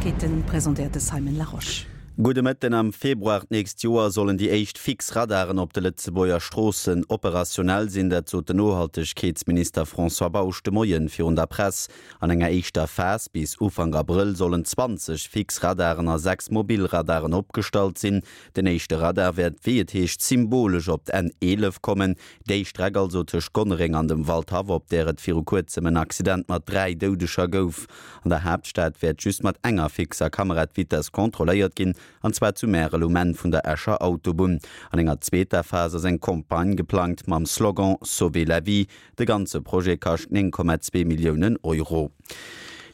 Neiegkeeten, presentéiert de Simon Larosche. Gudde Mëtten. Am Februar d'nächst Joer sollen déi éischt fix Radaren op de Lëtzebuerger Stroossen operationell sinn. Dat sot den Nohaltegkeetsminister François Bausch de Moien virun der Press. An enger éischter Phas bis Ufank Abrëll sollen 20 fix Radaren a 6 mobil Radaren opgestallt sinn. Den éischte Radar wäert, wéi et heescht, symbolesch op d'N 11 kommen. Déi Streck also tëscht Gonnereng an dem Waldhaff, op där et viru kuerzem en Accident mat 3 Doudeger gouf. An der Haaptstad wäert just mat enger fixer Kamera d'Vitess kontrolléiert ginn, an zwar zu Märel um Enn vun der Escher Autobunn. An enger zweeter Phas ass eng Campagne geplangt mam Slogan Sauvez la vie. De ganze Projet kascht 9,2 Milliounen Euro.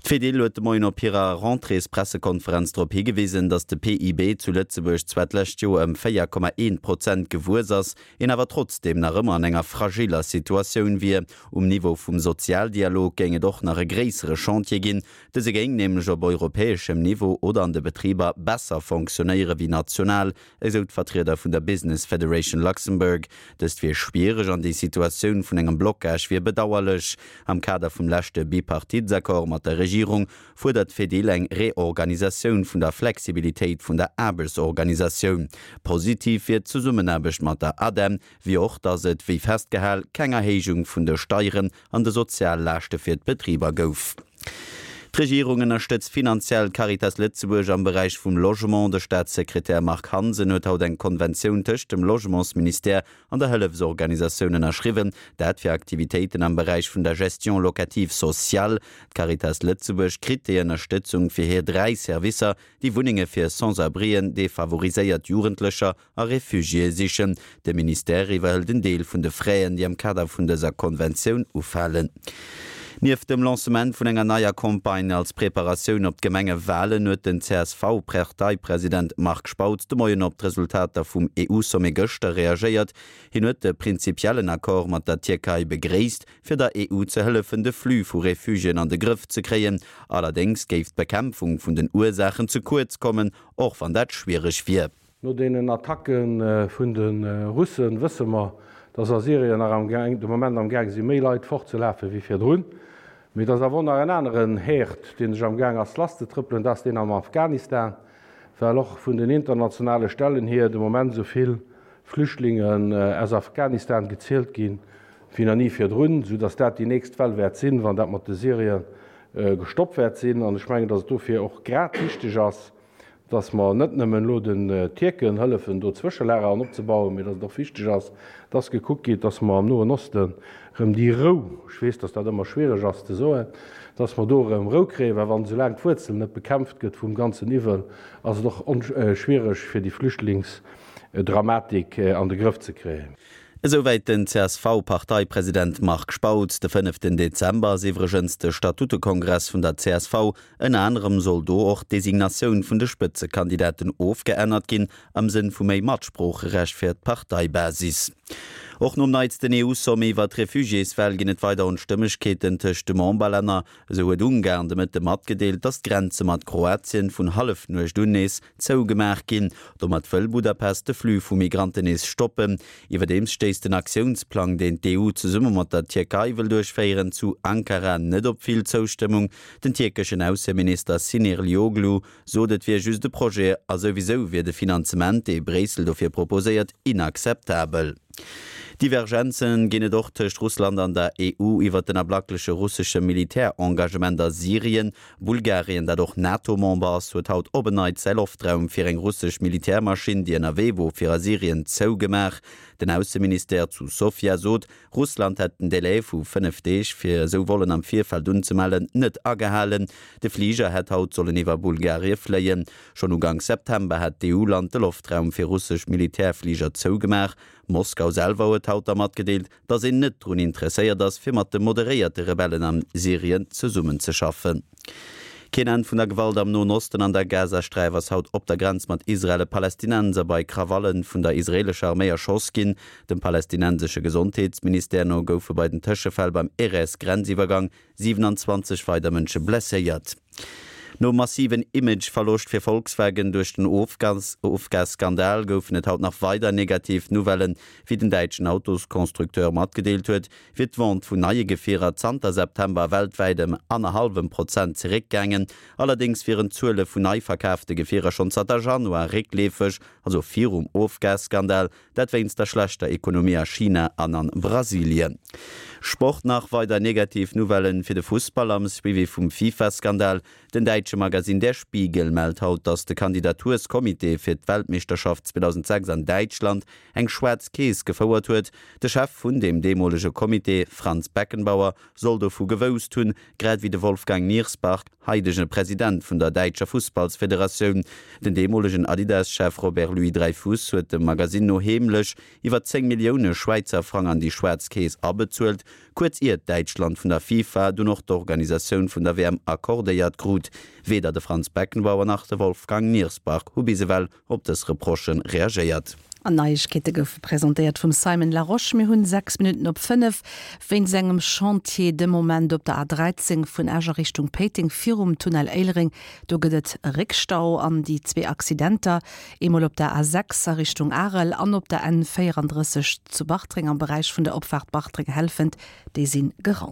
D'Fedil huet de Moien op hirer Rentréespressekonferenz drop higewisen, datt de PIB zu Lëtzebuerg zwar d'lescht Joer ëm 4,1 Prozent gewuess ass, een awer trotzdeem nach ëmmer an enger fragiller Situatioun wier. Um Niveau vum Sozialdialog géing et och nach e gréissere Chantier ginn. Dëse géing nämlech op europäeschem Niveau oder an de Betriber besser fonctionnéiere wéi national, esou d'Vertrieder vun der Business Federation Luxembourg. Dëst wier schwiereg an déi Situatioun vun engem Blocage wier bedauerlech. Am Kader vum leschte Bipartitsaccord mat der Regierung fuerdert d'Fedil eng Reorganisatioun vun der Flexibilitéit vun der Aarbechtsorganisatioun. Positiv wier d'Zesummenaarbecht mat der ADEM, wéi och, datt et, wéi festgehal, keng Erhéijung vun de Steieren an de Soziallaaschte fir d'Betriber gouf. D'Regierung ënnerstëtzt finanziell d'Caritas Lëtzebuerg am Beräich vum Logement. De Staatssekretär Marc Hansen huet haut eng Konventioun tëscht dem Logementsministère an der Hëllefsorganisatioun ënnerschriwwen. Dat fir Aktivitéiten am Beräich vun der Gestion locative sociale. D'Caritas Lëtzebuerg kritt déi Ënnerstëtzung fir hir 3 Servicer, déi Wunnenge fir Sans-abrien, defavoriséiert Jugendlecher a Refugiéë sichen. De Ministère iwwerhëlt en Deel vun de Fräen, déi am Kader vun dëser Konventioun ufalen. Nieft dem Lancement vun enger neier Campagne als Preparatioun op d'Gemengewalen huet den CSV-Parteipresident Marc Spautz de Moien op d'Resultater vum EU-Sommet gëschter reagéiert. Hien huet de prinzipiellen Accord mat der Tierkei begréisst, fir der EU ze hëllefen, de Flux vu Refugiéen an de Grëff ze kréien. Allerdéngs géif d'Bekämpfung vun den Ursaachen ze kuerz kommen, och wann dat schwiereg wier. No deenen Attacke vun de Russen wësse mer, dass a Syrien nach am de Moment am Gaang si méi Leit fortzelafe wéi virdrun. Mee et ass awer och nach en aneren Herd, dee sech am Gaang ass lasszetrëppelen, dat ass deen am Afghanistan, well och vun den internationale Stellen hier de Moment esou vill Flüchtlingen aus Afghanistan gezielt ginn, wéi nach ni virdrun, soudass dat déi nächst Well wäert sinn, wann dat mat de Syrier gestoppt wäert sinn. An ech mengen, dass et dofir och grad wichteg ass, dass mer net nëmmen elo den Tierken hëllefen, do Zwëschelager an opzebauen, mee dass et och wichteg ass, dass gekuckt gétt, dass mer am Noen Osten erëm déi Rou, ech weess, dass dat ëmmer schwiereg ass ze soen, dass mer do erëm Rou kréien, well wann esoulaang d'Wuerzel net bekämpft gëtt vum ganzen Iwwel, ass et och schwiereg, fir déi Flüchtlingsdramatik an de Grëff ze kréien. Esouwäit den CSV-Parteipresident Marc Spautz. De fënneften Dezember ass iwwregens de Statutekongress vun der csv. Ënner anerem soll do och d'Designatioun vun de Spëtzekandidaten ofgeännert ginn, am Sënn vu méi Matsproocherecht fir d'Parteibasis. Och nom neitsten EU-Sommet iwwer d'Refugiéswell ginn et weider Onstëmmegkeeten tëscht de Memberlänner. Esou huet Ungarn de Mëtte matgedeelt, datt d'Grenze mat Kroatien vun Hallefnuecht un nees zougemaach ginn. Domat wëll Budapest de Flux vu Migranten nees stoppen. Iwwerdeems stéisst den Aktiounsplang, deen d'EU zesumme mat der Tierkei wëll duerchféieren, zu Ankara net op vill Zoustëmmung. Den tierkeschen Ausseminister Sinirlioglu sot, et wier just e Projet a souwisou wier de Finanzement, dee Bréissel dofir proposéiert, inakzeptabel. Divergenze ginn et och tëscht Russland an der EU iwwer den ablackleche russesche Militärengagement a Syrien. Bulgarien, dat och NATO-Member ass, huet haut op en Neits säi Loftraum fir eng russesch Militärmaschinn, déi ënnerwee wor fir a Syrien, zougemaach. Den Ausseministère zu Sofia sot, Russland hätt den Delai vu 5 Deeg, fir esou Vollen am Virfeld unzemellen, net agehalen. De Fliger hätt haut sollen iwwer Bulgarie fléien. Schonn Uganks September hat d'EU-Land de Loftraum fir russesch Militärfliger zougemaach. Moskau selwer huet haut da matgedeelt, datt een net drun interesséiert ass, fir mat de moderéierte Rebellen am Syrien zesummenzeschaffen. Keen Enn vun der Gewalt am Noen Osten, An der Gazasträif ass haut op der Grenz mat Israel e Palästinenser bei Krawalle vun der israeelescher Arméi erschoss ginn. Dem palästinensesche Gesondheetsministère no goufe bei den Tëschefäll beim Erez-Grenziwwergang 27 weider Mënsche blesséiert. Nom massiven Image-Verloscht fir Volkswagen duerch den Ofgasskandal goufen et haut nach weider negativ Nouvellen. Wéi den däitschen Autosconstructeur matgedeelt huet, wier d'Vente vun neie Gefierer zanter September weltwäit ëm annerhallwem Prozent zeréckgaangen. Allerdéngs wieren d'Zuele vun nei verkaafte Gefierer schonn zanter Januar réckleefeg, also virum Ofgasskandal. Dat wéinst der schlechter Ekonomie a China an an Brasilien. Sport Nach weider negativ Nouvellen fir de Fussball am Suivi vum FIFA-Skandal. Den däitsche Magasinn Der Spiegel mellt haut, datt de Kandidaturskомmitee fir d'Weltmeeschterschaft 2006 an Däitschland eng schwaarz Keess gefouert huet. De Chef vun deem deemolege Comité, Franz Beckenbauer, soll dovu gewousst hunn, grad ewéi de Wolfgang Niersbach, haidege President vun der däitscher Fussballsfederatioun. Den deemolegen Adidas-Chef Robert Louis-Dreyfus huet dem Magasinn no heemlech iwwer 10 Millioune Schwäizer Frang an déi schwaarz Keess abezuelt, kuerz iert Däitschland vun der FIFA dunn och d'Organisatioun vun der WM accordéiert krut. Weder de Franz Beckenbauer nach de Wolfgang Niersbach hu bis ewell op dës Reprochë reagéiert. An Neiegkeete goufe presentéiert vum Simon Larosche. Mir hunn 6 Minutten op 5. Wéinst engem Chantier de Moment op der A13 vun Esch a Richtung Péiteng virum Tunnel Éilereng, do gëtt et e Réckstau. An déi zwee Accidenter, eemol op der A6 a Richtung Arel an op der N34 zu Bartreng am Beräich vun der Opfaart Bartreng-Helfent, déi si geraumt.